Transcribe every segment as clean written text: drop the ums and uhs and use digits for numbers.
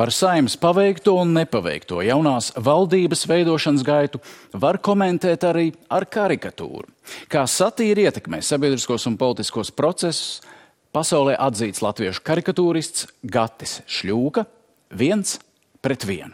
Par Saeimas paveikto un nepaveikto jaunās valdības veidošanas gaitu var komentēt arī ar karikatūru. Kā satīra ietekmē sabiedriskos un politiskos procesus, pasaulē atzīts latviešu karikatūrists Gatis Šļūka 1:1.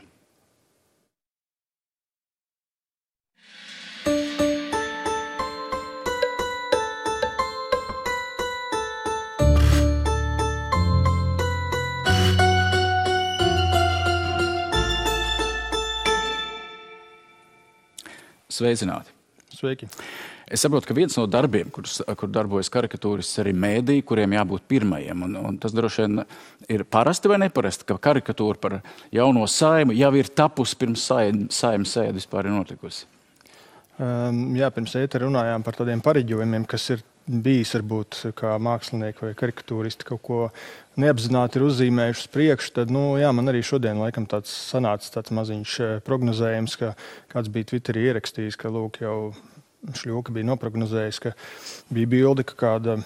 Sveicināti. Sveiki. Es saprotu, ka viens no darbiem, kur darbojas karikatūrists, arī mēdī, kuriem jābūt pirmajiem. Un tas droši vien ir parasti vai neparasti, ka karikatūra par jauno Saimu jau ir tapusi pirms Saimas sēde vispār ir notikusi. Jā, pirms ētera runājām par tādiem pareģojumiem, kas ir bijis varbūt kā mākslinieki vai karikatūristi kaut ko neapzināti ir uzzīmējuši uz priekšu, tad, jā, man arī šodien laikam sanāca tāds maziņš prognozējums, ka kāds bija Twitterī ierakstījis, ka lūk jau Šļūka bija noprognozējis, ka bija bilde, ka kāda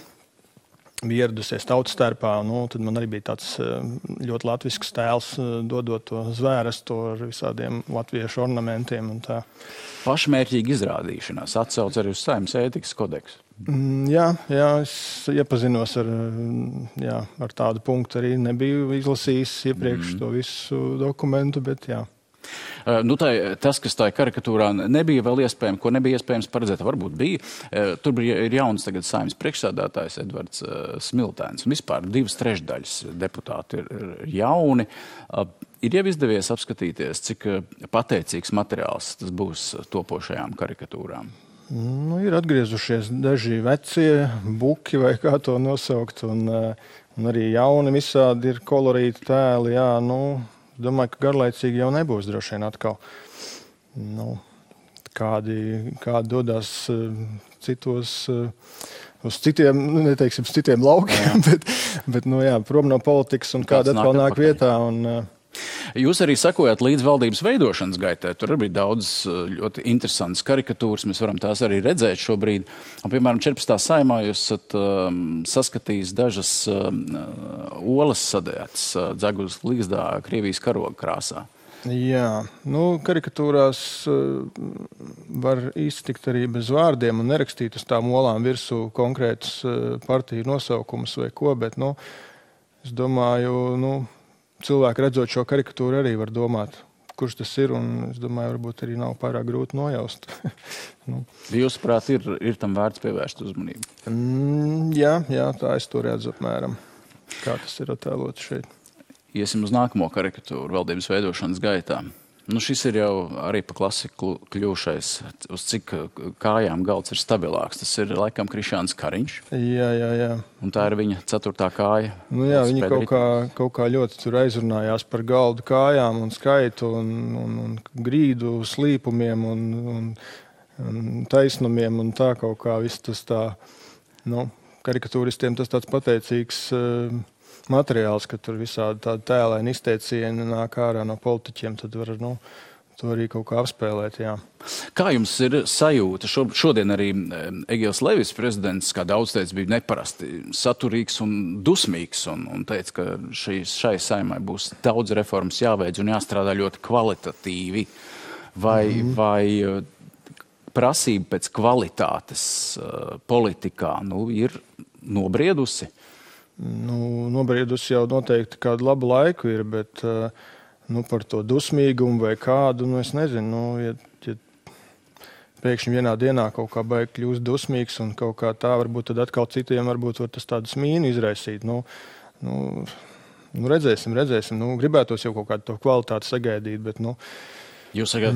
bija ieradusies tautas starpā, tad man arī bija tāds ļoti latvisks tēls, dodot to zvērestu ar visādiem latviešu ornamentiem un tā. Pašmērķīga izrādīšanās atsauc arī uz Saeimas ētikas kodeksu. Jā, es iepazinos ar tādu punktu, arī nebiju izlasījis iepriekš to visu dokumentu, bet jā. Tas, kas tā karikatūrā nebija vēl iespējams, ko nebija iespējams paredzēt, varbūt bija. Tur ir jauns tagad Saeimas priekšsēdētājs Edvards Smiltēns. Un vispār 2/3 deputāti ir jauni. Ir jau izdevies apskatīties, cik pateicīgs materiāls tas būs topošajām karikatūrām. Ir atgriezušies daži vecie buki, vai kā to nosaukt, un arī jauni visādi ir kolorīti tēli, jā, domāju, ka garlaicīgi jau nebūs droši vien atkal. Kādi dodās citos, uz citiem, neteiksim, citiem laukiem, bet prom no politikas un kāda atkal nāk vietā. Jūs arī sakojat līdz valdības veidošanas gaitai. Tur arī daudz ļoti interesantas karikatūras. Mēs varam tās arī redzēt šobrīd. Un, piemēram, 14. Saeimā jūs esat saskatījis dažas olas sadētas Dzegulas līgzdā Krievijas karoga krāsā. Jā, karikatūrās var iztikt arī bez vārdiem un nerakstīt uz tām olām virsū konkrētus partiju nosaukumus vai ko, bet, es domāju, cilvēki redzot šo karikatūru arī var domāt, kurš tas ir, un es domāju, varbūt arī nav pārāk grūti nojaust. Jūsuprāt, ir tam vērts pievērst uzmanību? Jā, tā es to redzu apmēram, kā tas ir attēlots šeit. Iesim uz nākamo karikatūru valdības veidošanas gaitā. Šis ir jau arī pa klasiku kļūšais, uz cik kājām galds ir stabilāks. Tas ir laikam Krišjāns Kariņš. Jā. Un tā ir viņa 4. kāja. Viņi kaut kā ļoti tur aizrunājās par galdu kājām un skaitu un grīdu slīpumiem un taisnumiem un tā kaut kā viss tas tā, karikatūristiem tas tāds pateicīgs materiāls, ka tur visādi tādi tēlaini izteicieni nāk ārā no politiķiem, tad var to arī kaut kā apspēlēt, jā. Kā jums ir sajūta? Šodien arī Egils Levis, prezidents, kā daudz teica, bija neparasti saturīgs un dusmīgs un teica, ka šai Saeimai būs daudz reformas jāveic un jāstrādā ļoti kvalitatīvi. Vai prasība pēc kvalitātes politikā ir nobriedusi? Nobriedusi jau noteikti kādu labu laiku ir, bet par to dusmīgumu vai kādu, es nezinu, ja pēkšņi vienā dienā kaut kā baigi kļūst dusmīgs un kaut kā tā, varbūt tad atkal citiem varbūt var tas tādu smīnu izraisīt. Redzēsim. Gribētos jau kaut kādu to kvalitāti sagaidīt, bet Jūs sakat,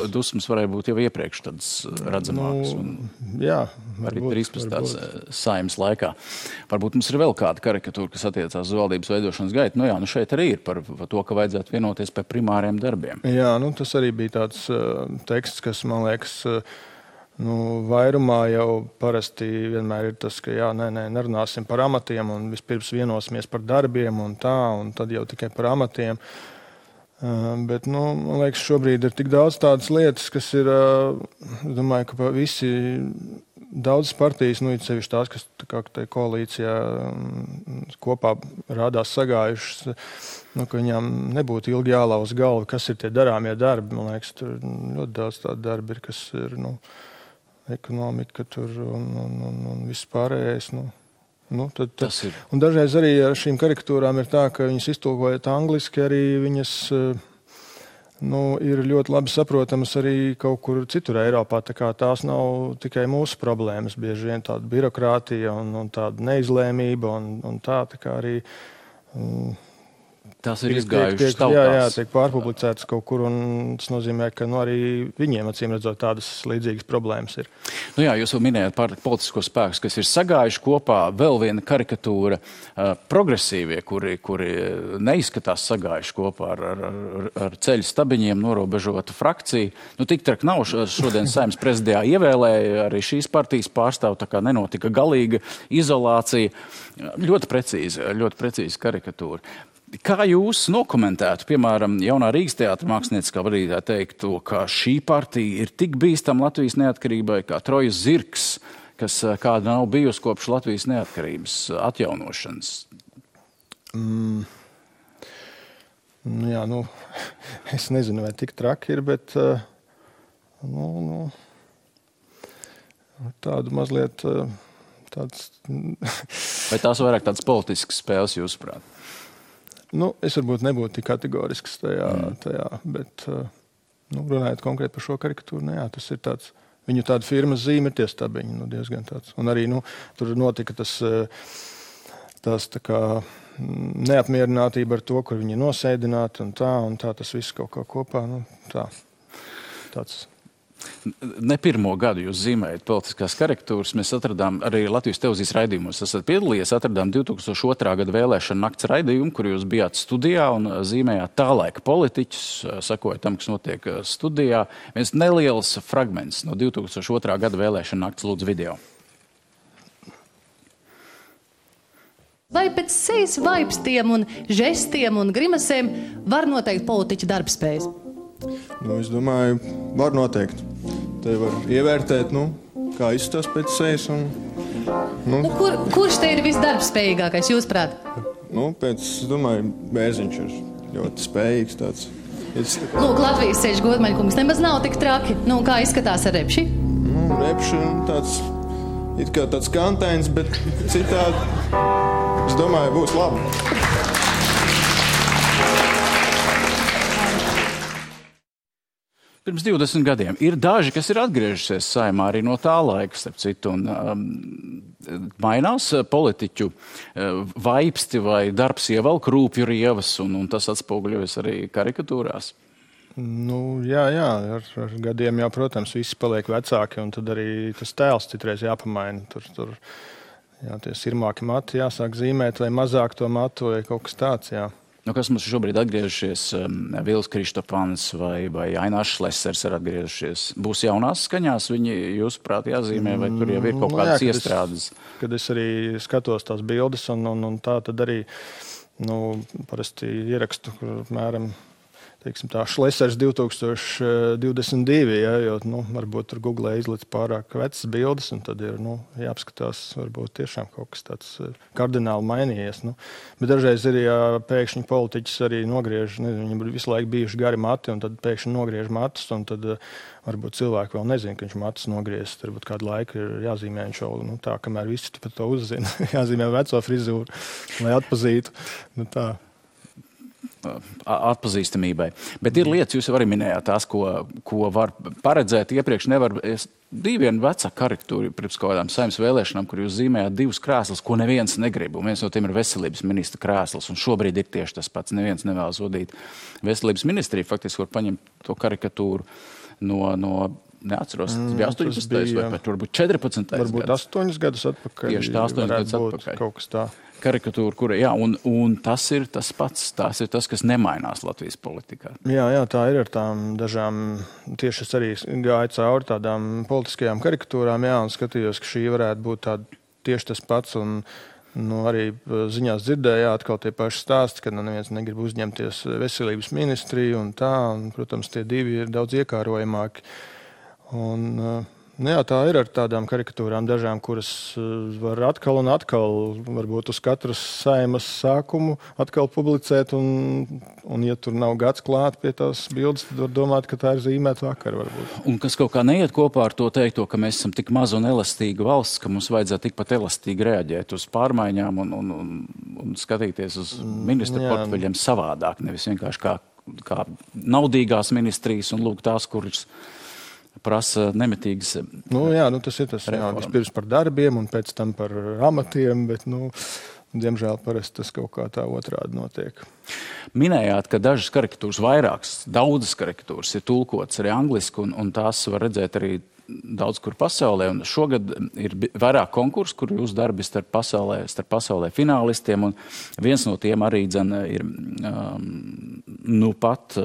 dusmas varēja būt jau iepriekš tādas redzamākas. Jā, arī 13. Saeimas laikā. Varbūt mums ir vēl kāda karikatūra, kas attiecās uz valdības veidošanas gaitu. Šeit arī ir par to, ka vajadzētu vienoties par primāriem darbiem. Jā, tas arī bija tāds teksts, kas, man liekas, vairumā jau parasti vienmēr ir tas, ka nerunāsim par amatiem un vispirms vienosimies par darbiem un tā, un tad jau tikai par amatiem. Bet, man liekas, šobrīd ir tik daudz tādas lietas, kas ir, es domāju, ka visi daudzas partijas, it sevišķi tās, kas kā koalīcijā kopā rādās sagājušas, ka viņām nebūtu ilgi jālauz galva, kas ir tie darāmie darbi. Man liekas, tur ļoti daudz tādu darbi ir, kas ir, ekonomika tur un viss pārējais, Un dažreiz arī ar šīm karikatūrām ir tā, ka viņas iztulkojot angliski, arī viņas ir ļoti labi saprotamas arī kaut kur citur Eiropā. Tā kā tās nav tikai mūsu problēmas, bieži vien tāda birokrātija un tāda neizlēmība un tā kā arī tās ir izgājušas tautās. Jā, tiek pārpublicētas kaut kur, un tas nozīmē, ka arī viņiem, acīm redzot, tādas līdzīgas problēmas ir. Jūs jau minējāt par politisko spēkus, kas ir sagājuši kopā. Vēl viena karikatūra progresīvie, kuri neizskatās sagājuši kopā ar ceļu stabiņiem norobežotu frakciju. Tik traki nav. Šodien Saeimas prezidijā ievēlēja arī šīs partijas pārstāvu, tā kā nenotika galīga izolācija. Ļoti precīzi karikatūra. Kā jūs nokomentētu, piemēram, jaunā Rīgas teātra mākslinieckā vadītāja teikto, ka šī partija ir tik bīstama Latvijas neatkarībai kā Trojas zirgs, kas kāda nav bijusi kopš Latvijas neatkarības atjaunošanas? Es nezinu, vai tik traki ir, bet tādu mazliet tāds... Vai tās vairāk tādas politiskas spēles jūsuprāt? Es varbūt nebūtu tik kategorisks tajā, bet runājot konkrēti par šo karikatūru, tas ir tāds, viņu tāda firmas zīme ir tie stabiņi, diezgan tāds. Un arī, tur notika tas tā kā neapmierinātība ar to, kur viņi nosēdināti un tā tas viss kaut kā kopā, tāds. Ne pirmo gadu jūs zīmējat politiskās karikatūras. Mēs atradām arī Latvijas televīzijas raidījumos. Esat piedalījies, atradām 2002. gada vēlēšana nakts raidījumu, kur jūs bijāt studijā un zīmējāt tā laika politiķus, sakojot tam, kas notiek studijā. Viens neliels fragments no 2002. gada vēlēšana nakts, lūdzu, video. Vai pēc sejas vaipstiem un žestiem un grimasēm var noteikt politiķa darbspējas? Es domāju, var noteikt. Te var ievērtēt, kā izskatās pēc sejas. Kurš te ir visdarbspējīgākais, jūsuprāt? Es domāju, Bērziņš ir ļoti spējīgs tāds. Latvijas ceļš Godmaņkungs nemaz nav tik traki. Kā izskatās ar Repši? Repši tāds, it kā tāds kantains, bet citādi, es domāju, būs labi. Pirms 20 gadiem ir daži, kas ir atgriežušies Saeimā arī no tā laika, starp citu, un mainās politiķu vaipsti vai darbs ievelk rūpju rievas, un tas atspoguļojas arī karikatūrās. Jā, ar gadiem jau, protams, visi paliek vecāki, un tad arī tas tēls citreiz jāpamaina. Tur tie sirmāki mati jāsāk zīmēt, vai mazāk to matu, vai kaut kas tāds, jā. Kas mums šobrīd atgriežušies? Vils Kristopans vai Ainārs Šlesers ir atgriežušies. Būs jaunās skaņās viņi, jūsuprāt, jāzīmē, vai tur jau ir kaut kādas iestrādes? Kad es arī skatos tās bildes un tā, tad arī parasti ierakstu, kur apmēram Šlesers 2022, jo varbūt tur Google izlic pārāk vecas bildes, un tad ir jāapskatās, varbūt tiešām kaut kas tāds kardināli mainījies. Bet dažreiz ir, ja pēkšņi politiķis arī nogriež, viņam visu laiku bijuši gari mati, un tad pēkšņi nogriež matus, un tad varbūt cilvēki vēl nezina, ka viņš matus nogriezis. Varbūt kādu laiku ir jāzīmē viņš vēl tā, kamēr visi par to uzzina. Jāzīmē veco frizūru, lai atpazītu. Tā. Atpazīstamībai. Bet ir lietas, jūs jau arī minējāt tās, ko var paredzēt iepriekš. Bija viena vecā karikatūra pirms kaut kādām Saeimas vēlēšanām, kur jūs zīmējāt divus krēslus, ko neviens negrib. Un viens no tiem ir veselības ministra krēsls. Un šobrīd ir tieši tas pats. Neviens nevēlas vadīt veselības ministriju. Faktiski var paņemt to karikatūru no neatceros, tas bija 18. vai pat varbūt 14. Varbūt 8 gadus atpakaļ. Tieši tā 8 gadus atpakaļ. Kaut kas tā. Karikatūra, kura, un tas ir tas pats, tas ir tas, kas nemainās Latvijas politikā. Jā, tā ir ar tām dažām, tieši es arī gāju cauri tādām politiskajām karikatūrām, un skatījos, ka šī varētu būt tāda tieši tas pats, un Arī ziņās dzirdēju, atkal tie paši stāsti, ka neviens negrib uzņemties veselības ministriju un tā. Un, protams, tie divi ir daudz iekārojamāki. Tā ir ar tādām karikatūrām dažām, kuras var atkal un atkal, varbūt uz katras saimas sākumu atkal publicēt. Un ja tur nav gads klāt pie tās bildes, tad var domāt, ka tā ir zīmēta vakar varbūt. Un kas kaut kā neiet kopā ar to teikto, ka mēs esam tik maza un elastīga valsts, ka mums vajadzētu tikpat elastīgi reaģēt uz pārmaiņām un skatīties uz ministru portfeļiem savādāk, nevis vienkārši kā naudīgās ministrijas un lūk tās, kuras prasa nemitīgas tas ir tas. Vispirms par darbiem un pēc tam par amatiem, bet, diemžēl parasti tas kaut kā tā otrādi notiek. Minējāt, ka dažas karikatūras, daudzas karikatūras ir tulkotas arī angliski, un tās var redzēt arī daudz kur pasaulē. Un šogad ir vairāk konkursu, kur jūs darbi starp pasaulē finālistiem, un viens no tiem arī ir pat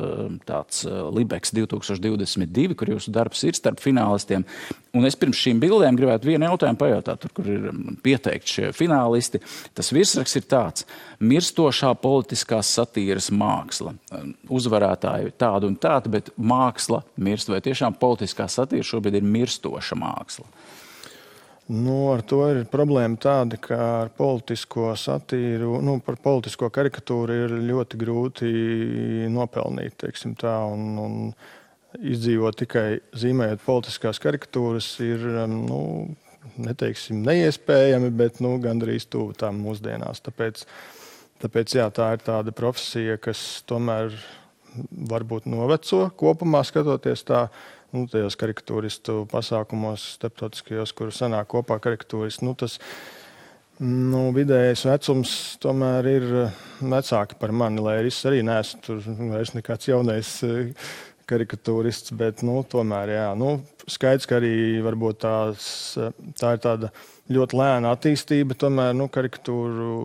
tāds Libeks 2022, kur jūsu darbs ir starp finālistiem. Un es pirms šīm bildēm gribētu vienu jautājumu pajautāt, tur, kur ir pieteikti šie finālisti. Tas virsraksts ir tāds: mirstošā politiskās satīras māksla. Uzvarētāji tādu un tādu, bet māksla mirst. Vai tiešām politiskā satīra šobrīd ir mirstoša māksla? Ar to ir problēma tāda, ka ar politisko satīru, par politisko karikatūru ir ļoti grūti nopelnīt, teiksim tā, un izdzīvot tikai zīmējot politiskās karikatūras ir, neteiksim neiespējami, bet gandrīz tuvu tām mūsdienās. Tāpēc tā ir tāda profesija, kas tomēr varbūt noveco kopumā skatoties tā. Tajos karikatūristu pasākumos starptautiskajos, kur sanāk kopā karikatūristi, tas vidējais vecums tomēr ir vecāki par mani, lai es arī neesmu tur vairs nekāds jaunais karikatūrists, bet tomēr, skaidrs, ka arī varbūt tā ir tāda ļoti lēna attīstība, tomēr karikatūru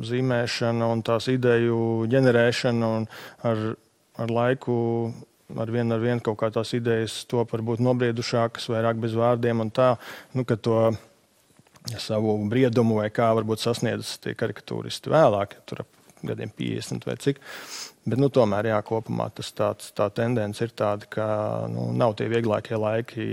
zīmēšana un tās ideju ģenerēšana un ar laiku ar vienu kaut kā tās idejas top varbūt nobriedušākas, vairāk bez vārdiem un tā, ka to savu briedumu vai kā varbūt sasniedz tie karikatūristi vēlāk, tur ap gadiem 50 vai cik. Bet tomēr, kopumā tā tendence ir tāda, ka nav tie vieglākie laiki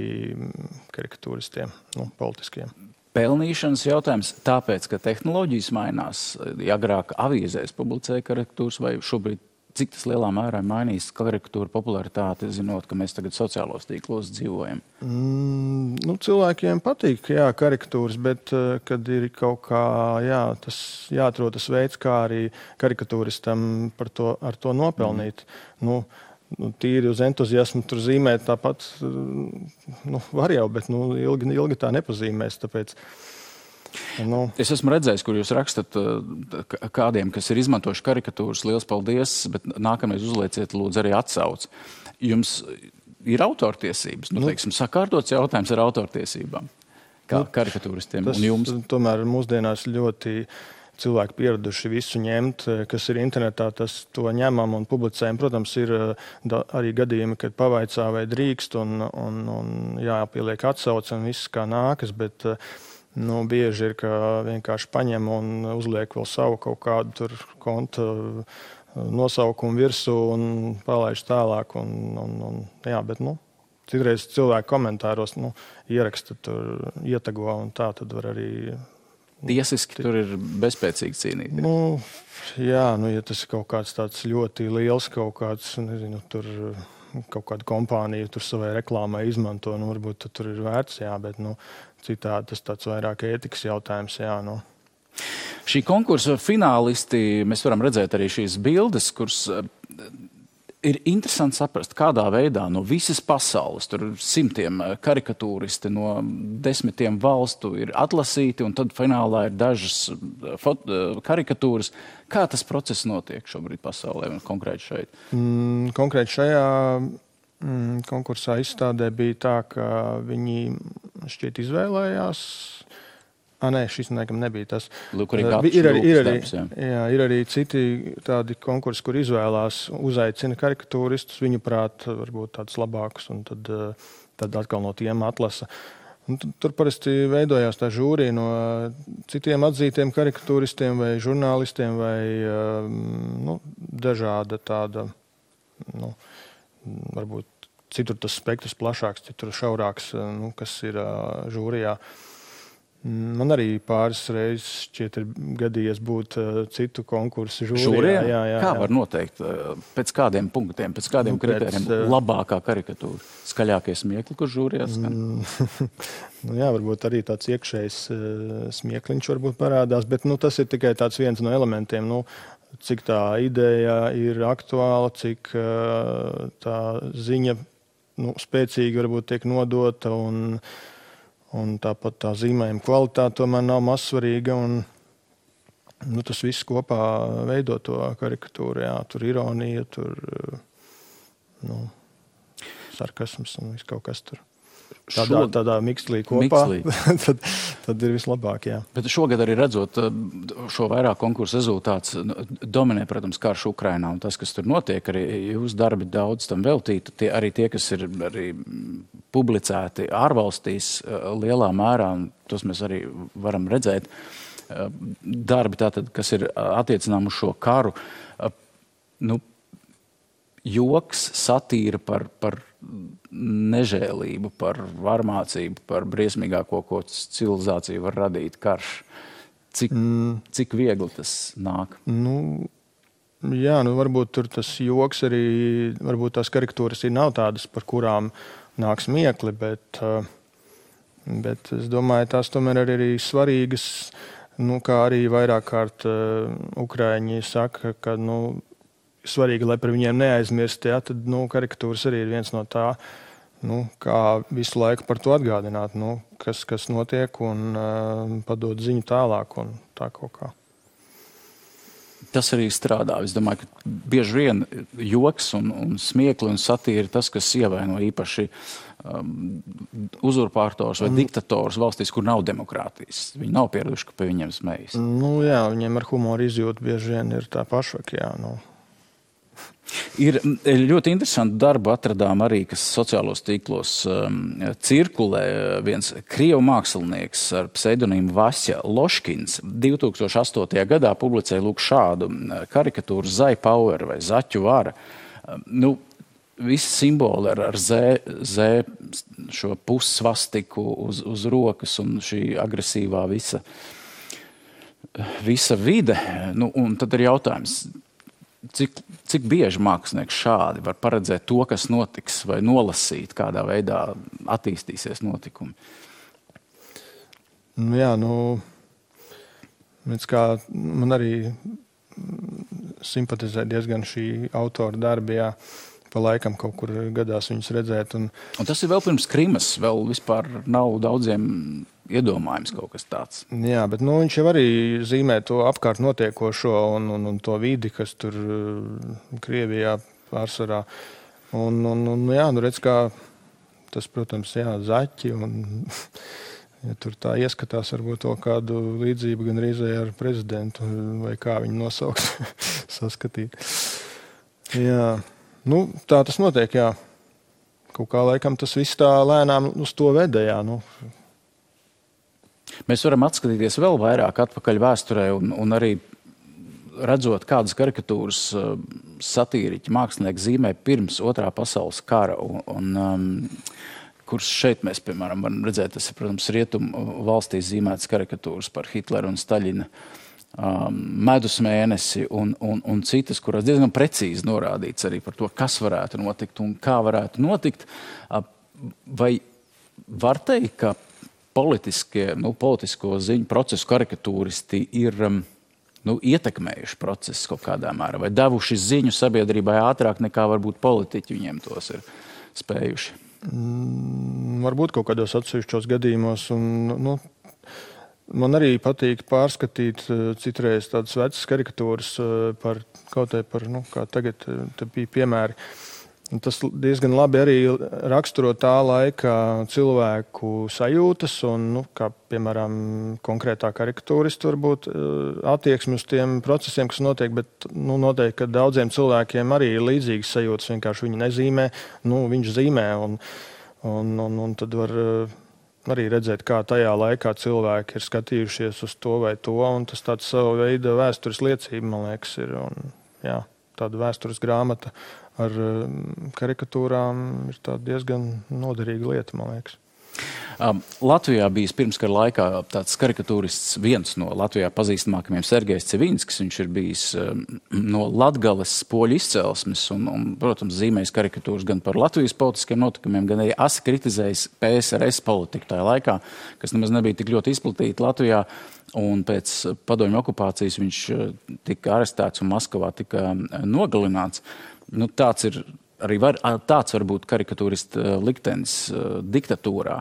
karikatūristiem, politiskiem. Pelnīšanas jautājums, tāpēc, ka tehnoloģijas mainās, agrāk avīzēs publicēja karikatūras, vai šobrīd cik tas lielā mērā mainīs karikatūra popularitāti, zinot, ka mēs tagad sociālos tīklos dzīvojam? Cilvēkiem patīk, karikatūras, bet kad ir kaut kā, tas jāatrod tas veids, kā arī karikatūristam ar to nopelnīt. Tīri uz entuziasmu tur zīmēt tāpat, var jau, bet ilgi tā nepazīmēs, tāpēc. Es esmu redzējis, kur jūs rakstat kādiem, kas ir izmantojuši karikatūras, liels paldies, bet nākamreiz uzlieciet lūdzu arī atsauci. Jums ir autortiesības, teiksim, sakārtots jautājums ar autortiesībām, kā karikatūristiem un jums? Tomēr mūsdienās ļoti cilvēki pieraduši visu ņemt, kas ir internetā, tas to ņemam un publicējam. Protams, ir arī gadījumi, kad pavaicā vai drīkst un jāpieliek atsauce un viss kā nākas, bet bieži ir, ka vienkārši paņem un uzliek vēl savu kaut kādu tur konta nosaukumu virsū un palaiž tālāk. Bet citreiz cilvēki komentāros ieraksta tur, ietago un tā, tad var arī. Tiesiski tur ir bezspēcīgi cīnīt. Ja tas ir kaut kāds tāds ļoti liels kaut kāds, tur kaut kāda kompānija tur savai reklāmai izmanto, varbūt tur ir vērts, bet citādi tas tāds vairāk ētikas jautājums, Šī konkursa finālisti, mēs varam redzēt arī šīs bildes, kuras ir interesanti saprast, kādā veidā no visas pasaules, tur simtiem karikatūristi no 10 valstu ir atlasīti, un tad finālā ir dažas karikatūras. Kā tas process notiek šobrīd pasaulē un konkrēti šeit? Konkrēti šajā konkursā izstādē bija tā, ka viņi šķiet izvēlējās. Šis nebija tas. Lūk, ir arī citi tādi konkursi, kur izvēlās, uzaicina karikatūristus, viņu prāt varbūt tādus labākus, un tad atkal no tiem atlasa. Tur parasti veidojās tā žūrija no citiem atzītiem karikatūristiem vai žurnālistiem vai dažāda tāda, varbūt citur tas spektrs plašāks, citur šaurāks, kas ir žūrijā. Man arī pāris reizes šķiet ir gadījies būt citu konkursu žūrijā. Jā. Kā var noteikt? Pēc kādiem punktiem, pēc kādiem kritērijiem labākā karikatūra? Skaļākie smiekli, kur žūrijā skan? Varbūt arī tāds iekšējs smiekliņš varbūt parādās, bet tas ir tikai tāds viens no elementiem. Cik tā ideja ir aktuāla, cik tā ziņa spēcīgi varbūt tiek nodota un tāpat tā zīmējuma kvalitāte tomēr nav mazsvarīga. Tas viss kopā veido to karikatūru. Jā, tur ironija, tur sarkasms un viss kaut kas tur. Tādā mikslī kopā, tad ir vislabāk, jā. Bet šogad arī redzot šo vairāk konkursu rezultāts, dominē, protams, karš Ukrainā un tas, kas tur notiek, arī jūs darbi daudz tam veltīti, arī tie, kas ir arī publicēti ārvalstīs lielā mērā, un tos mēs arī varam redzēt, darbi tātad, kas ir attiecinām uz šo karu, joks, satīra par nežēlību, par varmācību, par briesmīgāko, ko civilizācija var radīt karš. Cik viegli tas nāk? Varbūt tur tas joks arī, varbūt tās karikatūras nav tādas, par kurām nāk smiekli, bet es domāju, tās tomēr arī svarīgas, kā arī vairāk kārt Ukraiņi saka, ka, svarīgi, lai par viņiem neaizmirst, tad karikatūras arī ir viens no tā, kā visu laiku par to atgādināt, kas notiek un padot ziņu tālāk un tā kaut kā. Tas arī strādā. Es domāju, ka bieži vien joks un smiekli un satīra ir tas, kas ievaino īpaši uzurpātors vai diktators valstīs, kur nav demokrātijas. Viņi nav pieraduši, ka pie viņiem smējas. Viņiem ar humoru izjūtu bieži vien ir tā pašvak, Ir ļoti interesanti darbu atradām arī, kas sociālos tīklos cirkulē. Viens krievu mākslinieks ar pseidonīmu Vasja Loškins 2008. gadā publicēja šādu karikatūru Zai Power vai Zaķu vara. Visi simboli ar Z šo pussvastiku uz rokas un šī agresīvā visa vide. Un tad ir jautājums, cik bieži mākslinieks šādi var paredzēt to, kas notiks, vai nolasīt, kādā veidā attīstīsies notikumi? Man arī simpatizē diezgan šī autora darbi, pa laikam kaut kur gadās viņus redzēt. Un tas ir vēl pirms Krimas, vēl vispār nav daudziem iedomājums kaut kas tāds. Jā, bet viņš jau arī zīmē to apkārt notiekošo un to vidi, kas tur Krievijā pārsvarā. Redz, kā tas, protams, zaķi un tur tā ieskatās varbūt to kādu līdzību gan reizē ar prezidentu vai kā viņu nosaukt, saskatīt. Jā, tā tas notiek, jā. Kaut kā laikam tas viss tā lēnām uz to veda, jā, Mēs varam atskatīties vēl vairāk atpakaļ vēsturē un arī redzot, kādas karikatūras satīriķi mākslinieki zīmē pirms Otrā pasaules kara. Kurš šeit mēs, piemēram, varam redzēt, tas ir, protams, rietumu valstīs zīmētas karikatūras par Hitleru un Staļina medus mēnesi un citas, kurās diezgan precīzi norādīts arī par to, kas varētu notikt un kā varētu notikt. Vai var teikt, ka politisko ziņu procesu karikatūristi ir ietekmējuši procesu kaut kādā mērā vai devuši ziņu sabiedrībai ātrāk nekā varbūt politiķi viņiem tos ir spējuši? Varbūt kaut kādos atsevišķos gadījumos. Man arī patīk pārskatīt citreiz tādas vecas karikatūras par kā tagad te bija piemēri. Tas diezgan labi arī raksturo tā laika cilvēku sajūtas un, kā piemēram, konkrētā karikatūristu varbūt attieksmi uz tiem procesiem, kas notiek, bet noteikti, ka daudziem cilvēkiem arī ir līdzīgas sajūtas, vienkārši viņi nezīmē, viņš zīmē un tad var arī redzēt, kā tajā laikā cilvēki ir skatījušies uz to vai to, un tas tāds savu veidu vēstures liecība, man liekas, ir. Un, jā, tāda vēstures grāmata ar karikatūrām ir tāda diezgan noderīga lieta, man liekas. Latvijā bijis pirmskara laikā tāds karikatūrists, viens no Latvijā pazīstamākajiem Sergejs Cevinskis. Viņš ir bijis no Latgales poļu izcelsmes un, protams, zīmējis karikatūras gan par Latvijas politiskiem notikumiem, gan arī asi kritizējis PSRS politiku tajā laikā, kas nemaz nebija tik ļoti izplatīta Latvijā. Un pēc padomju okupācijas viņš tika arestēts un Maskavā tika nogalināts. Nu, tāds var būt karikatūrista liktenis diktatūrā.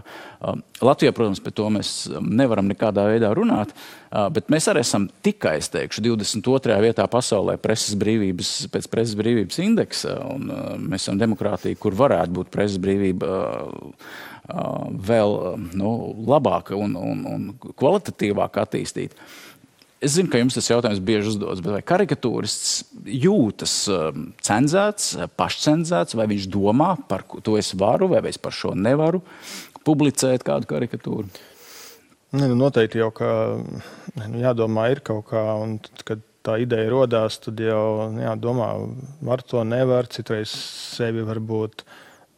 Latvijā, protams, par to mēs nevaram nekādā veidā runāt, bet mēs arī esam tikai, es teikšu, 22. vietā pasaulē pēc preses brīvības indeksa, un mēs esam demokrātija, kur varētu būt preses brīvība vēl labāka un kvalitatīvāk attīstīta. Es zinu, ka jums tas jautājums bieži uzdodas, bet vai karikatūrists jūtas cenzēts, pašcenzēts, vai viņš domā par to es varu, vai es par šo nevaru publicēt kādu karikatūru? Noteikti jau, ka jādomā ir kaut kā, un tad, kad tā ideja rodās, tad jau jādomā, var to, nevar, citreiz sevi varbūt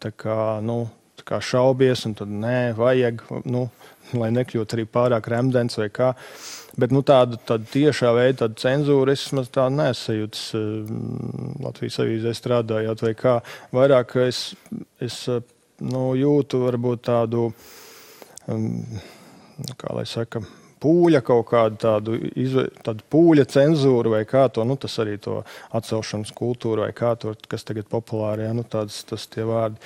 tā kā šaubies, un tad nē, vajag, lai nekļūtu arī pārāk remdens vai kā. Bet tāda tiešā veida tāda cenzūra, es maz tā nesajūtas Latvijas avīzē strādājot vai kā. Vairāk es jūtu varbūt tādu, kā lai saka, pūļa kaut kādu tādu pūļa cenzūru vai kā to, tas arī to atcelšanas kultūru vai kā to, kas tagad populāri, tas tie vārdi.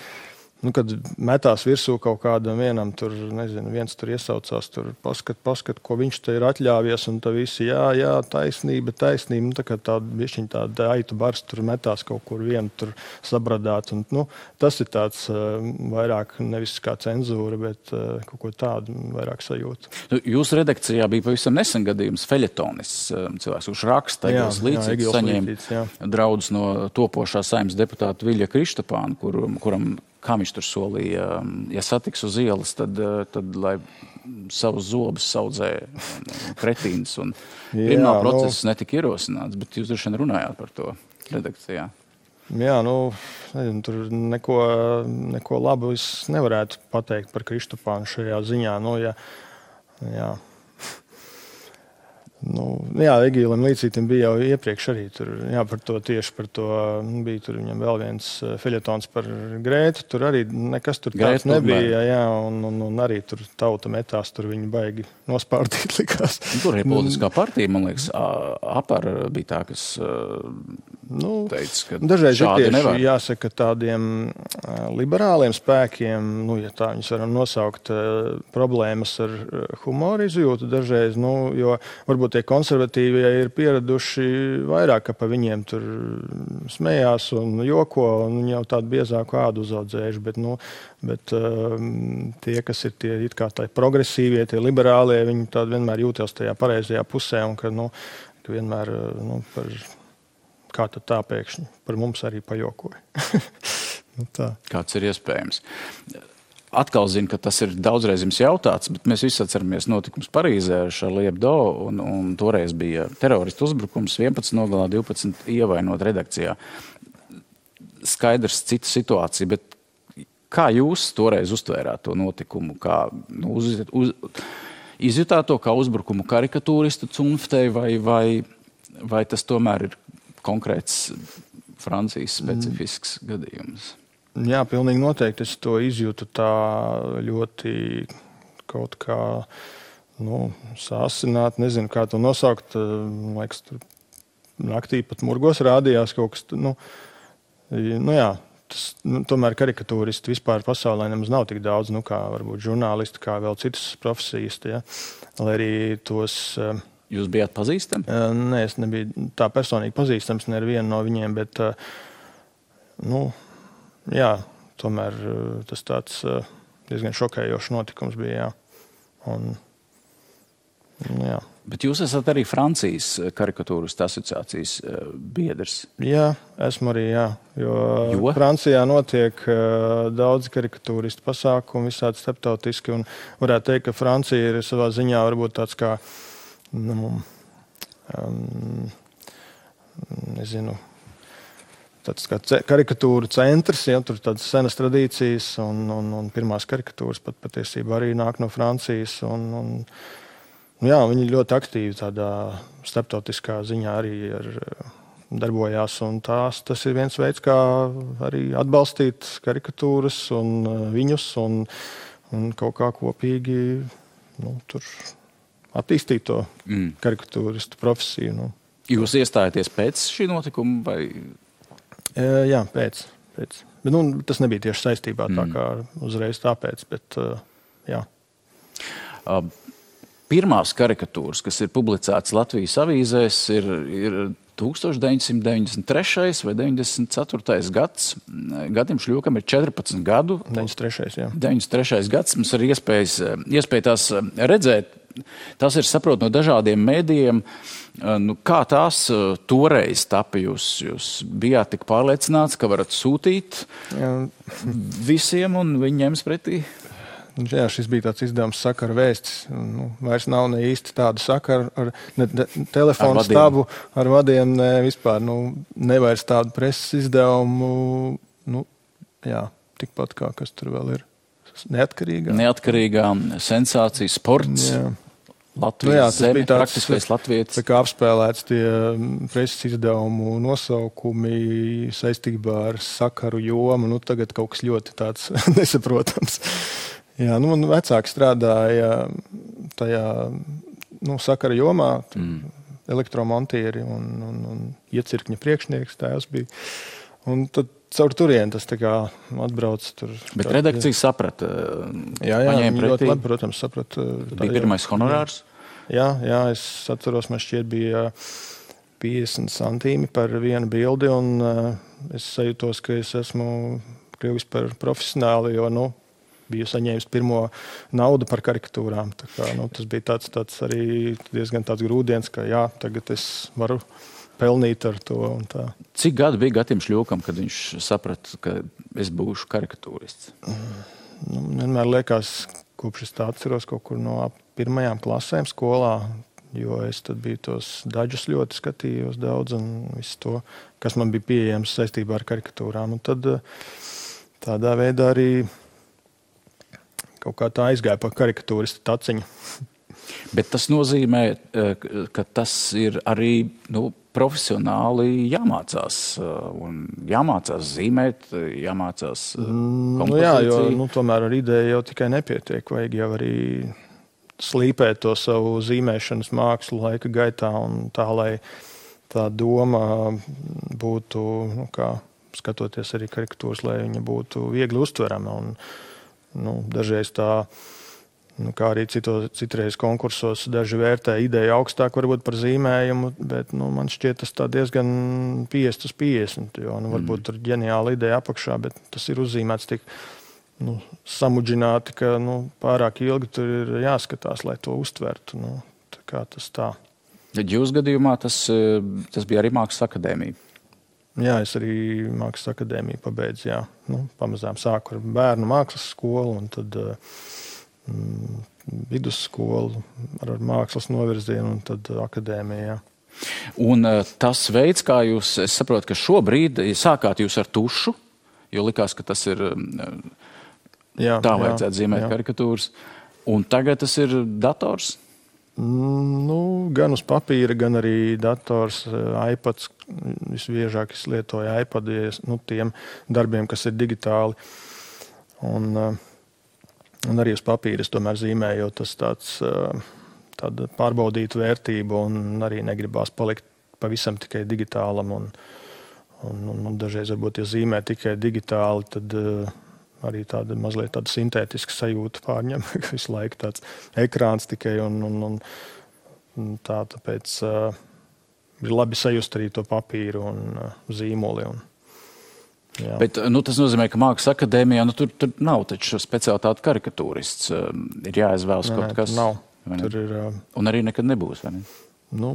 Kad metās virsū kaut kādam vienam, tur, nezinu, viens tur iesaucās, tur paskat, ko viņš te ir atļāvies, un tā visi, jā, taisnība, tā kā tāda aitu bars tur metās kaut kur vienu tur sabradāt, un, tas ir tāds vairāk nevis kā cenzūra, bet kaut ko tādu vairāk sajūta. Jūsu redakcijā bija pavisam nesen gadījums feļetonis, cilvēks, kurš raksta Egils Līcītis, saņēma draudus no topošā Saeimas deputāta Viļa Krištapāna, kuram kā viņš tur solīja, ja satiks uz ielas, tad lai savus zobus saudzē kretīns. Un krimināla process netika ierosināts, bet jūs droši vien runājāt par to redakcijā. Jā, nezinu, tur neko labu es nevarētu pateikt par Krištapānu šajā ziņā. Jā. Egilam Līcītim bija jau iepriekš arī tur, tieši par to, bija tur viņam vēl viens feļetons par Grētu, tur arī nekas tur tāds nebija, un arī tur tauta metās, tur viņi baigi nospārdīt likās. Tur ir politiskā partija, man liekas, APAR bija tā, kas teica, ka dažreiz šādi nevar. Jāsaka tādiem liberāliem spēkiem, ja tā viņus varam nosaukt, problēmas ar humoru izjūtu dažreiz, jo varbūt tie konservatīvie ir pieraduši vairāk, ka pa viņiem tur smējās un joko, un viņi jau tādu biezāku ādu uzaudzējuši, bet tie, kas ir tie it kā tā progresīvie, tie liberālie, viņi tādi vienmēr jūtās tajā pareizajā pusē, un ka vienmēr par kā tad tā pēkšņi par mums arī pajokoja. Tā. Kāds ir iespējams? Atkal zinu, ka tas ir daudzreiz jums jautāts, bet mēs visi atceramies notikums Parīzē ar Charlie Hebdo, un toreiz bija teroristu uzbrukums, 11 nogalā, 12 ievainot redakcijā. Skaidrs cita situācija, bet kā jūs toreiz uztvērāt to notikumu? Kā izjutāt to kā uzbrukumu karikatūristu cunftei, vai tas tomēr ir konkrēts Francijas specifisks gadījums? Jā, pilnīgi noteikti. Es to izjūtu tā ļoti kaut kā sāsināt, nezinu, kā to nosaukt. Liekas, tur naktī pat murgos rādījās kaut kas. Tomēr karikatūristi vispār pasaulē nemaz nav tik daudz, kā varbūt žurnālisti, kā vēl citas profesijas. Ja? Lai arī tos... Jūs bijāt pazīstami? Nē, es nebiju tā personīgi pazīstams, ne ar vienu no viņiem, bet tomēr tas tāds diezgan šokējošs notikums bija. Bet jūs esat arī Francijas karikatūristu asociācijas biedrs. Jā, esmu arī, jā. Jo Francijā notiek daudz karikatūristu pasākumu, visādi starptautiski, un varētu teikt, ka Francija ir savā ziņā varbūt tāds kā, tāds kā karikatūra centrs, ja, tur tādas senas tradīcijas, un pirmās karikatūras pat patiesībā arī nāk no Francijas, jā, viņi ļoti aktīvi tādā starptautiskā ziņā arī darbojās, un tas ir viens veids, kā arī atbalstīt karikatūras un viņus, un kaut kā kopīgi tur attīstīt to karikatūristu profesiju. Jūs iestājaties pēc šī notikuma, vai? Jā, pēc. Bet, tas nebija tieši saistībā tā kā uzreiz tāpēc, bet jā. Pirmās karikatūras, kas ir publicētas Latvijas avīzēs, ir 1993. vai 94. gads. Gadim Šļūkam ir 14 gadu. 93. jā. 93. gads. Mums ir iespēja tās redzēt. Tas ir saprot no dažādiem mēdījiem. Kā tās toreiz tapa? Jūs bijāt tik pārliecināts, ka varat sūtīt visiem un viņi ņems pretī? Jā, šis bija tāds izdevums Sakara vēstis. Vairs nav ne īsti tādu sakaru ar telefonu stabu, ar vadiem, ne vispār. Nevairs tādu preses izdevumu. Jā, tikpat kā kas tur vēl ir. Neatkarīgā sensācija, sports. Jā. Latvijas zeme, praktiskais latvietis. Tā kā apspēlēts tie preses izdevumu nosaukumi saistībā ar sakaru jomu. Tagad kaut kas ļoti tāds nesaprotams. Jā, man vecāki strādāja tajā sakara jomā, elektromontieri un iecirkņa priekšnieks tēvs bija. Un tad caur turieni tas tā kā atbrauc tur. Bet redakcija saprata? Jā, viņi ļoti labi, protams, saprata. Bija pirmais honorārs? Jā, es atceros, man šķiet bija 50 centīmi par vienu bildi, un es sajūtos, ka es esmu kļuvis par profesionāli, jo, biju saņēmis pirmo naudu par karikatūrām. Tā kā, tas bija tāds arī diezgan tāds grūdienis, ka jā, tagad es varu pelnīt ar to un tā. Cik gadu bija Gatim Šļūkam, kad viņš saprata, ka es būšu karikatūrists? Vienmēr liekas, kopš es tā atceros kaut kur no pirmajām klasēm skolā, jo es tad biju tos daļus ļoti skatījos daudz un visu to, kas man bija pieejams saistībā ar karikatūrām. Un tad tādā veidā arī kaut kā tā aizgāja pa karikatūristu taciņu. Bet tas nozīmē, ka tas ir arī profesionāli jāmācās. Un jāmācās zīmēt, jāmācās kompozīciju. Jā, jo tomēr ar ideju jau tikai nepietiek. Vajag jau arī slīpēt to savu zīmēšanas mākslu laika gaitā un tā, lai tā doma būtu, kā skatoties arī karikatūras, lai viņa būtu viegli uztverama. Un dažreiz tā, kā arī citreiz konkursos, daži vērtē ideju augstāk varbūt par zīmējumu, bet man šķiet tas tā diezgan 50/50, jo varbūt tur ģeniāla ideja apakšā, bet tas ir uzzīmēts tik samudžināti, ka pārāk ilgi tur ir jāskatās, lai to uztvertu. Tā kā tas tā. Jūsu gadījumā tas bija arī Mākslas akadēmija. Jā, es arī Mākslas akadēmiju pabeidzu, jā. Pamazām sāku ar bērnu mākslas skolu un tad vidusskolu ar mākslas novirzienu un tad akadēmiju, jā. Un tas veids, kā jūs, es saprotu, ka šobrīd sākāt jūs ar tušu, jo likās, ka tas ir tā vajadzētu zīmēt karikatūras, un tagad tas ir dators? Gan uz papīra, gan arī dators, iPads. Visbiežāk es lietoju iPadu, tiem darbiem, kas ir digitāli. Un arī uz papīra es tomēr zīmēju, jo tas tāda pārbaudīta vērtība un arī negribās palikt pavisam tikai digitālam. Un dažreiz varbūt, ja zīmē tikai digitāli, tad arī tāda mazliet tāda sintētiska sajūta pārņem, ka visu laiku tāds ekrāns tikai un tā, tāpēc ir labi sajust arī to papīru un zīmoli. Bet tas nozīmē, ka Mākslas akadēmijā tur nav taču speciālitāte karikatūrists. Ir jāizvēlas kaut kas. Tur ir... Un arī nekad nebūs, vai ne? Nu,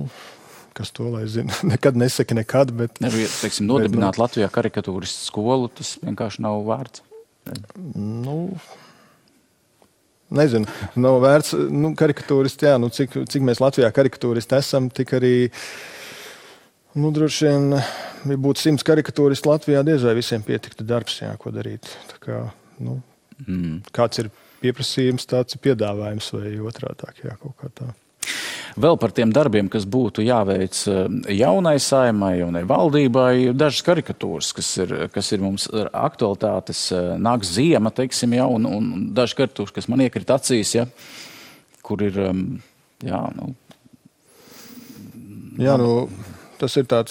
kas to lai zina? Nekad nesaka nekad, bet... Teiksim, nodibināt Latvijā karikatūristu skolu, tas vienkārši nav vērts. Nu... Nezinu, nav vērts, karikatūristi, jā, cik mēs Latvijā karikatūristi esam, tik arī, droši vien, ja būtu 100 karikatūristi Latvijā, diez vai visiem pietiktu darbs, jā, ko darīt. Tā kā, kāds ir pieprasījums, tāds ir piedāvājums vai otrādāk, jā, kaut kā tā. Vēl par tiem darbiem, kas būtu jāveic jaunai saimai, jaunai valdībai, dažas karikatūras, kas ir mums aktualitātes, nāks ziema, teiksim, ja, un dažas karikatūras, kas man iekrīt acīs, ja, kur ir, jā, Jā, tas ir tāda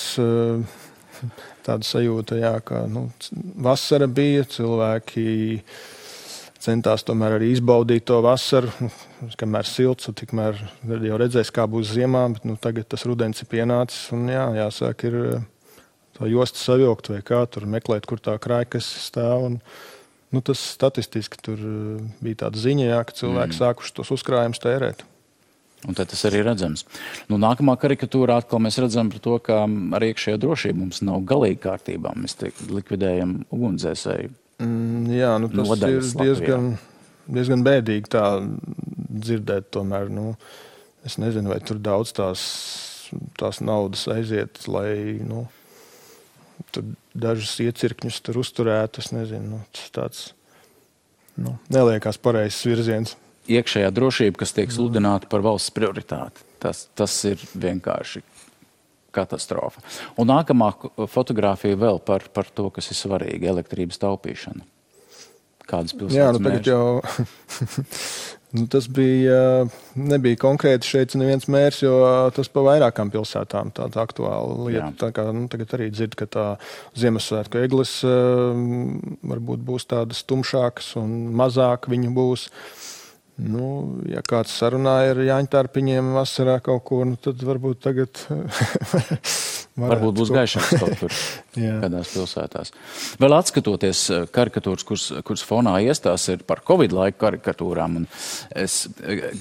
sajūta, jā, ka, vasara bija, cilvēki centās tomēr arī izbaudīt to vasaru, kamēr silts, tikmēr jau redzēs, kā būs ziemā, bet tagad tas rudens ir pienācis, un jāsāk ir tā josta savilkt vai kā, tur meklēt, kur tā krājkas stāv, un tas statistiski tur bija tāda ziņa, jā, ka cilvēki sākuši tos uzkrājumus tērēt. Un tad tas arī redzams. Nākamā karikatūrā atkal mēs redzam par to, ka ar iekšējā drošība mums nav galīgi kārtībā. Mēs likvidējam ugunsdzēsēju. Jā, tas ir diezgan bēdīgi tā dzirdēt tomēr. Es nezinu, vai tur daudz tās naudas aiziet, lai tur dažus iecirkņus tur uzturētu. Es nezinu, tas tāds neliekās pareizs virziens. Iekšējā drošība, kas tiek sludināta par valsts prioritāti. Tas ir vienkārši katastrofa. Un nākamā fotogrāfija vēl par to, kas ir svarīgi, elektrības taupīšana. Kādas pilsētas mērķis? Tas nebija konkrēti šeit neviens mērs, jo tas pa vairākām pilsētām tāda aktuāla lieta. Tā kā, tagad arī dzird, ka tā Ziemassvētku egles varbūt būs tādas tumšākas un mazāk viņu būs. Ja kāds sarunāja ar Jāņtārpiņiem vasarā kaut ko, tad varbūt tagad varbūt būs gaišāks kaut kur kādās pilsētās. Vēl atskatoties karikatūras, kuras fonā iestās ir par Covid laiku karikatūrām, un es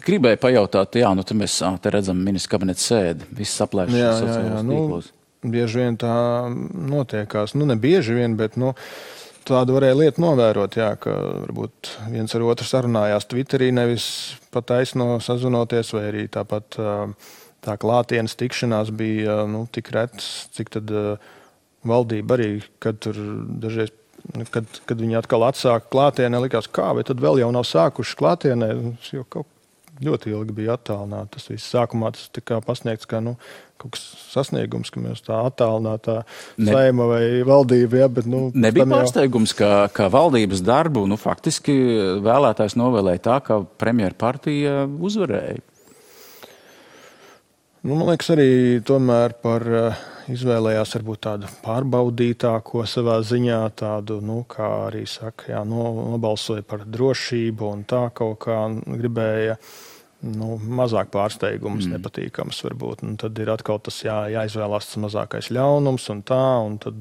gribēju pajautāt, te mēs te redzam ministra kabineta sēdi, viss aplēšas sociālos tīklos. Bieži vien tā notiekās, ne bieži vien, bet tādu varēja lietu novērot, ka varbūt viens ar otru sarunājās Twitterī, nevis pat taisno sazvanoties, vai arī tāpat tā klātienes tikšanās bija tik retas, cik tad valdība arī, kad tur dažreiz, kad viņi atkal atsāka klātienē, likās, vai tad vēl jau nav sākuši klātienē, jo kaut ļoti ilgi bija attālināti. Tas viss sākumā tas tika pasniegts kā kaut kas sasniegums, ka mēs tā attālinātā saima vai valdība. Bet, nebija pārsteigums, ka valdības darbu faktiski vēlētājs novēlēja tā, ka premjera partija uzvarēja. Man liekas, arī tomēr izvēlējās varbūt tādu pārbaudītāko savā ziņā, tādu, kā arī saka, nobalsoja par drošību un tā kaut kā gribēja mazāk pārsteigums, nepatīkams varbūt. Un tad ir atkal tas jāizvēlās tas mazākais ļaunums un tā, un tad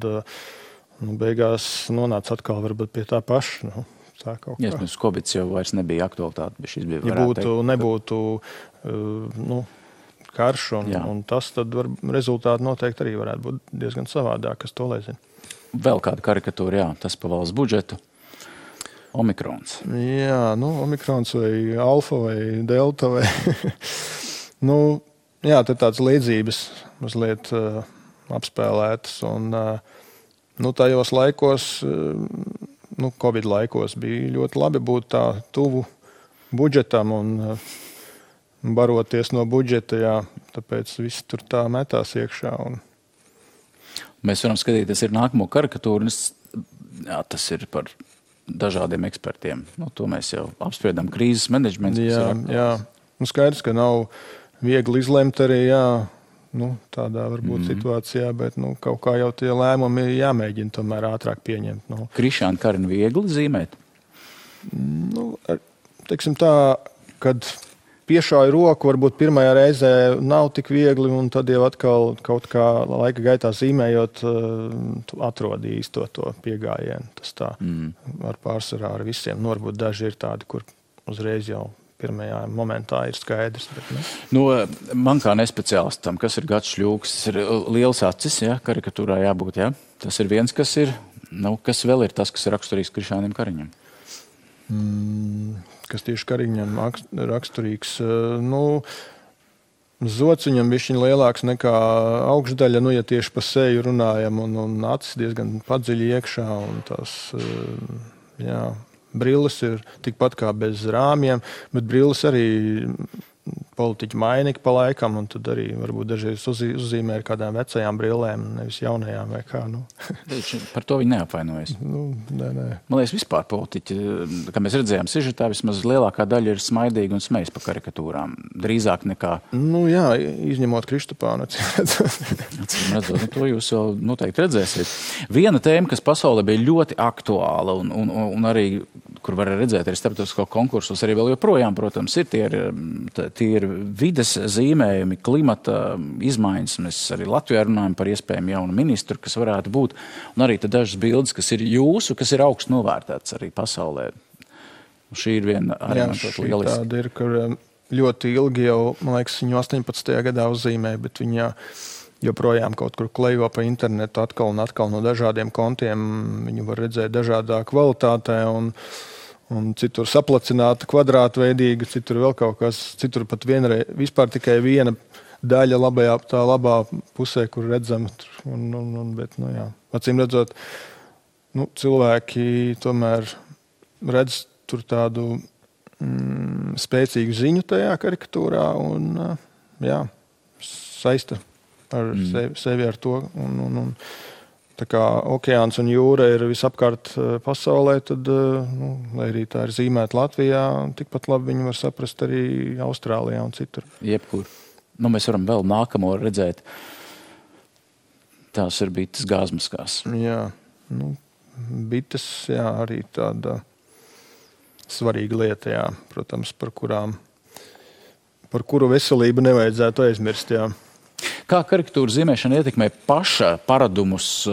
beigās nonāca atkal varbūt pie tā paša. Tā kaut kā. Covid jau vairs nebija aktualitāte, bet šis bija nebūtu karš, un tas tad rezultāti noteikti arī varētu būt diezgan savādāk, kas to lai zina. Vēl kāda karikatūra, tas pa valsts budžetu. Omikrons. Jā, omikrons vai alfa vai delta vai... te tāds līdzības mazliet apspēlētas, un tajos laikos, Covid laikos bija ļoti labi būt tā tuvu budžetam un baroties no budžeta, tāpēc viss tur tā metās iekšā. Mēs varam skatīties ir nākamo karikatūru, tas ir par dažādiem ekspertiem. To mēs jau apspriedām krīzes menedžments. Jā. Skaidrs, ka nav viegli izlemt arī, tādā varbūt situācijā, bet kaut kā jau tie lēmumi jāmēģina tomēr ātrāk pieņemt. Krišāna Karina viegli zīmēt? Teiksim tā, kad piešāju roku, varbūt pirmajā reizē nav tik viegli, un tad jau atkal kaut kā laika gaitā zīmējot, atrod īsto to piegājienu. Tas tā ar pārsvarā ar visiem. Varbūt daži ir tādi, kur uzreiz jau pirmajā momentā ir skaidrs. Bet, Man kā nespeciālistam, kas ir Gads Šļūks, tas ir liels acis, ja, karikatūrā jābūt, ja? Tas ir viens, kas ir, kas vēl ir tas, kas ir raksturīgs Krišānim Kariņam? Kas tieši Kariņam raksturīgs, zods viņam bišķiņ lielāks nekā augšdaļa, ja tieši pa seju runājam, un acis diezgan padziļi iekšā, un tās, brilles ir tikpat kā bez rāmjiem, bet brilles arī politiķi mainīgi pa laikam, un tad arī varbūt dažreiz uzzīmē ar kādām vecajām brillēm, nevis jaunajām vai kā. Par to viņi neapvainojas. Nē. Man liekas, vispār politiķi, kā mēs redzējām sižetā, vismaz lielākā daļa ir smaidīgi un smejas pa karikatūrām. Drīzāk nekā... izņemot Kristupānu. Redzot, to jūs vēl noteikti redzēsiet. Viena tēma, kas pasaulē bija ļoti aktuāla un arī, kur var redzēt arī starptautisko konkursus, arī vēl joprojām, protams, tie ir vides zīmējumi, klimata izmaiņas. Mēs arī Latvijā runājam par iespējami jaunu ministru, kas varētu būt. Un arī dažas bildes, kas ir jūsu, kas ir augstu novērtētas arī pasaulē. Šī ir viena arī lieliska. Tāda ir, kur ļoti ilgi jau, man liekas, viņu 18. gadā uzzīmē, bet viņa joprojām kaut kur klejo pa internetu atkal un atkal no dažādiem kontiem. Viņu var redzēt dažādā kvalitātē un citur saplacināta, kvadrātveidīga, citur vēl kaut kas, citur pat vispār tikai viena daļa labā pusē, kur redzam. Bet, acīm redzot, cilvēki tomēr redz tur tādu spēcīgu ziņu tajā karikatūrā un saista ar sevi ar to. Tā kā okeāns un jūra ir visapkārt pasaulē, tad, lai arī tā ir zīmēta Latvijā, tikpat labi viņi var saprast arī Austrālijā un citur. Jebkur. Mēs varam vēl nākamo redzēt. Tās ir bites gāzmaskās. Jā, bites, arī tāda svarīga lieta, protams, par kuru veselību nevajadzētu aizmirst, Kā karikatūra zīmēšana ietekmē paša paradumus,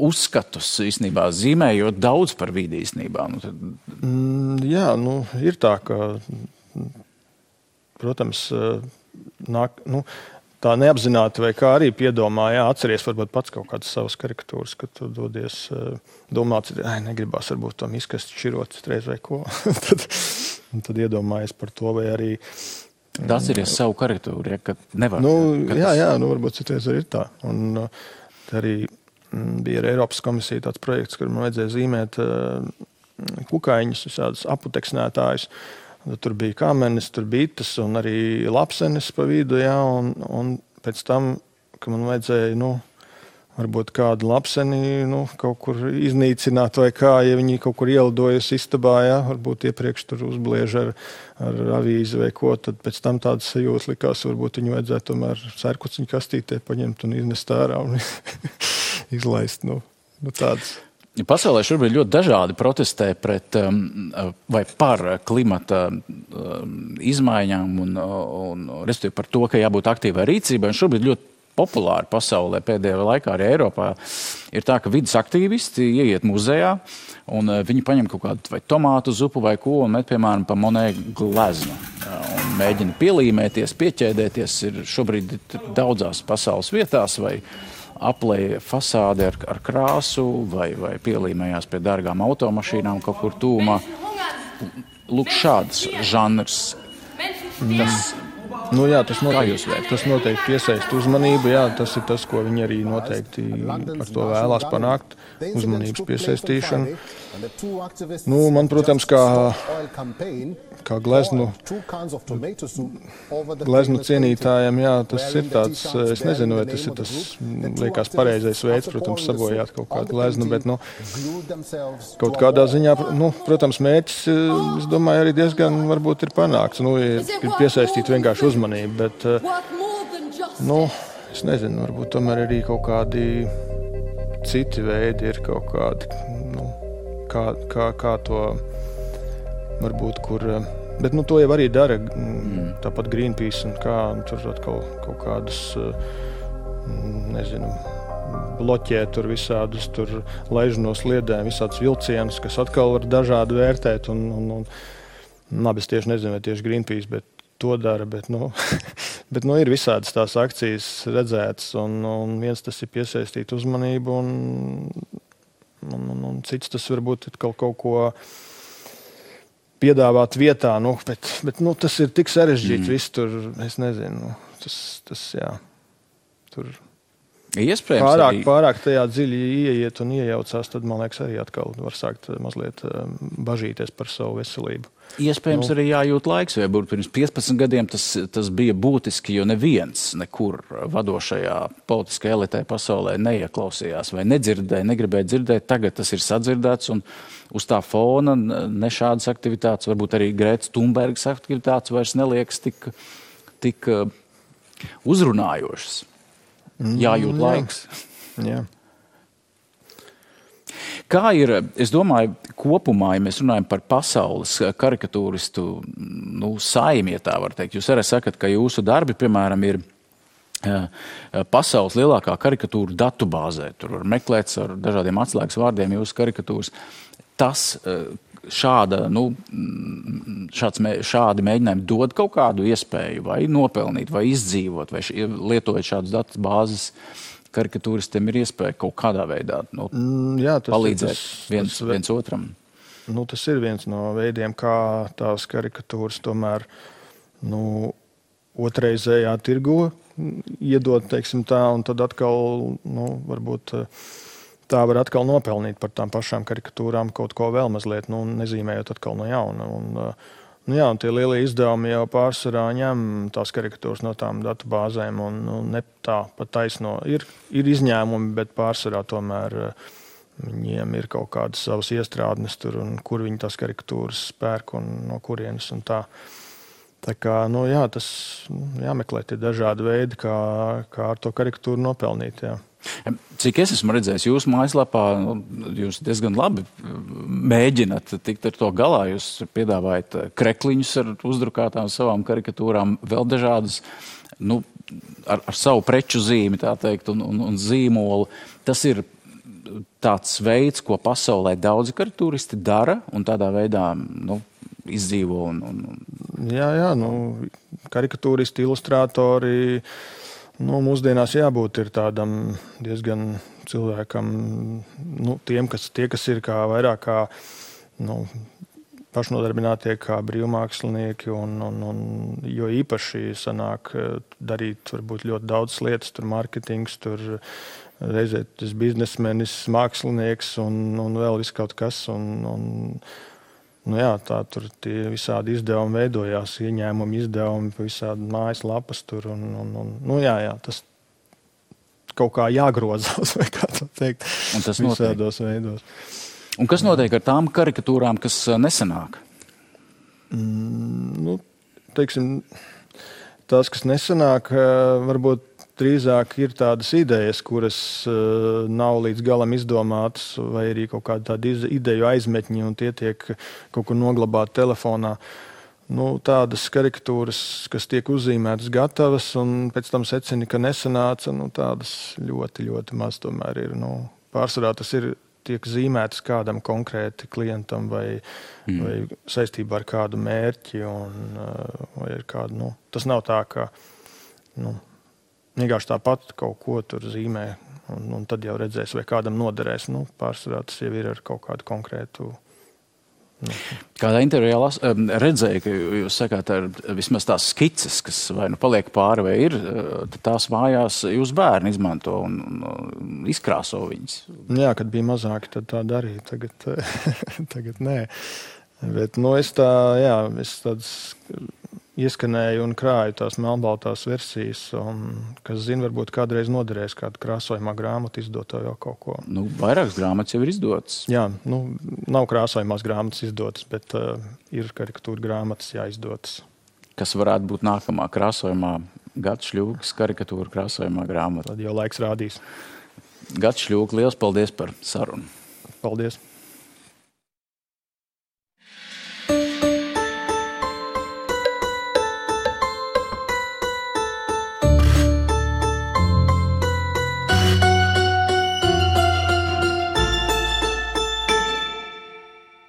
uzskatus īstenībā zīmējot daudz par vidi īstenībā? Ir tā, ka, protams, tā neapzināti vai kā arī piedomā, atceries varbūt pats kaut kādas savas karikatūras, kad tu dodies domāt, negribās varbūt tam izkast šķirot reiz vai ko. tad iedomājies par to vai arī tas ir savu karikatūru, ka nevar. Varbūt citreiz arī ir tā. Un arī bija ar Eiropas komisiju tāds projekts, kur man vajadzēja zīmēt kukaiņus, visādus aputeksnētājus. Tur bija kamenis, tur bites un arī lapsenis pa vidu, un pēc tam, ka man vajadzēja, varbūt kādu lapseni kaut kur iznīcināt vai kā, ja viņi kaut kur ielidojas istabā, varbūt iepriekš tur uzbliež ar avīzi vai ko, tad pēc tam tādas sajūtas likās, varbūt viņu vajadzētu tomēr sērkuciņu kastītē paņemt un iznest ārā un izlaist, tādas. Pasaulē šobrīd ļoti dažādi protestē pret vai par klimata izmaiņām un respektīvi par to, ka jābūt aktīvai rīcībai. Un šobrīd ļoti populāri pasaulē pēdējā laikā arī Eiropā ir tā, ka vidas aktīvisti ieiet muzejā un viņi paņem kaut kādu vai tomātu zupu vai ko un met, piemēram, pa Monet gleznu un mēģina pielīmēties, pieķēdēties. Ir šobrīd daudzās pasaules vietās vai aplēja fasādi ar krāsu vai pielīmējās pie dārgām automašīnām kaut kur tūmā. Lūk, šāds žanrs. Tas noteikti piesaist uzmanību, tas ir tas, ko viņi arī noteikti ar to vēlās panākt, uzmanības piesaistīšanu. Man, protams, kā gleznu cienītājiem, tas ir tāds, es nezinu, vai tas ir tas, liekas, pareizais veids, protams, sabojāt kaut kādu gleznu, bet, kaut kādā ziņā, protams, mērķis, es domāju, arī diezgan varbūt ir panākts, ir piesaistīt vienkārši uzmanību, bet, es nezinu, varbūt tomēr arī kaut kādi citi veidi ir kaut kādi, kā to varbūt, kur, bet, to jau arī dara, tāpat Greenpeace un tur atkal kaut kādas, nezinu, bloķē tur visādus tur laiž no sliedēm, visādus vilcienus, kas atkal var dažādi vērtēt. Un labi, es tieši nezinu, vai tieši Greenpeace, bet to dara, bet ir visādas tās akcijas redzētas, un viens tas ir piesaistīt uzmanību, un cits tas varbūt kaut ko piedāvāt vietā, bet tas ir tik sarežģīts, viss tur, es nezinu, tas jā, tur pārāk tajā dziļi ieiet un iejaucās, tad, man liekas, arī atkal var sākt mazliet bažīties par savu veselību. Iespējams, arī jājūt laiks, vai pirms 15 gadiem tas bija būtiski, jo neviens nekur vadošajā politiskajā elitē pasaulē neieklausījās vai nedzirdēja, negribēja dzirdēt. Tagad tas ir sadzirdēts, un uz tā fona ne šādas aktivitātes, varbūt arī Grētas Thunbergas aktivitātes vairs neliekas tik uzrunājošas. Jājūt laiks. Jā. Kā ir, es domāju, kopumā, ja mēs runājam par pasaules karikatūristu saimi, ja tā var teikt, jūs arī sakat, ka jūsu darbi, piemēram, ir pasaules lielākā karikatūra datubāzē. Tur var meklēt ar dažādiem atslēgas vārdiem jūsu karikatūras. Šādi mēģinājumi dod kaut kādu iespēju vai nopelnīt, vai izdzīvot, vai lietojot šādus datubāzes karikatūristiem ir iespēja kaut kādā veidā palīdzēt viens otram. Tas ir viens no veidiem, kā tās karikatūras tomēr otrreizējā tirgu iedot, teiksim tā, un tad atkal, varbūt tā var atkal nopelnīt par tām pašām karikatūrām kaut ko vēl mazliet, nezīmējot atkal no jauna. Un tie lielie izdevumi jau pārsvarā ņem tās karikatūras no tām datubāzēm, un ne tā pat taisno. Ir izņēmumi, bet pārsvarā tomēr viņiem ir kaut kādas savas iestrādnes tur, un kur viņi tās karikatūras pērk un no kurienes un tā. Tā kā, tas jāmeklē tie dažādi veidi, kā ar to karikatūru nopelnīt, jā. Cik es esmu redzējis jūsu mājaslapā, jūs diezgan labi mēģināt tikt ar to galā. Jūs piedāvājat krekliņus ar uzdrukātām savām karikatūrām, vēl dažādas, ar savu preču zīmi, tā teikt, un zīmolu. Tas ir tāds veids, ko pasaulē daudzi karikatūristi dara, un tādā veidā, izdzīvo. Jā, karikatūristi, ilustrātori, mūsdienās jābūt ir tādam diezgan cilvēkam, tie, kas ir vairāk kā pašnodarbinātie, kā brīvmākslinieki, jo īpaši sanāk darīt varbūt ļoti daudz lietas, tur marketings, tur reizē tas biznesmenis, mākslinieks un vēl viss kaut kas. Tā tur tie visādi izdevumi veidojās, ieņēmumi izdevumi, visādi mājaslapas tur. Tas kaut kā jāgrozās, vai kā tā teikt, visādos veidos. Un kas notiek ar tām karikatūrām, kas nesanāk? Teiksim, tās, kas nesanāk, varbūt drīzāk ir tādas idejas, kuras nav līdz galam izdomātas, vai arī kaut kāda tāda ideju aizmetņi, un tie tiek kaut kur noglabāti telefonā. Tādas karikatūras, kas tiek uzzīmētas gatavas, un pēc tam secina, ka nesanāca, tādas ļoti, ļoti maz tomēr ir. Pārsvarā tas tiek zīmētas kādam konkrēti klientam vai saistībā ar kādu mērķi, vai ar kādu, tas nav tā, ka, vienkārši tāpat kaut ko tur zīmē, un tad jau redzēs, vai kādam noderēs. Pārsvarā tas jau ir ar kaut kādu konkrētu. Kādā intervijā redzēju, ka jūs sakāt, ar vismaz tās skices, kas vai paliek pāri vai ir, tad tās mājās jūs bērni izmanto un izkrāso viņas. Jā, kad bija mazāki, tad tā darīja. Tagad nē. Bet es tādas ieskanēju un krāju tās melnbaltās versijas, kas zina, varbūt kādreiz noderēs kādu krāsojumā grāmatu izdot jau kaut ko. Vairākas grāmatas jau ir izdotas. Jā, nav krāsojumās grāmatas izdotas, bet ir karikatūra grāmatas jāizdotas. Kas varētu būt nākamā krāsojumā? Gats Šļūks, karikatūra krāsojumā grāmata. Tad jau laiks rādīs. Gats Šļūks, liels paldies par sarunu. Paldies.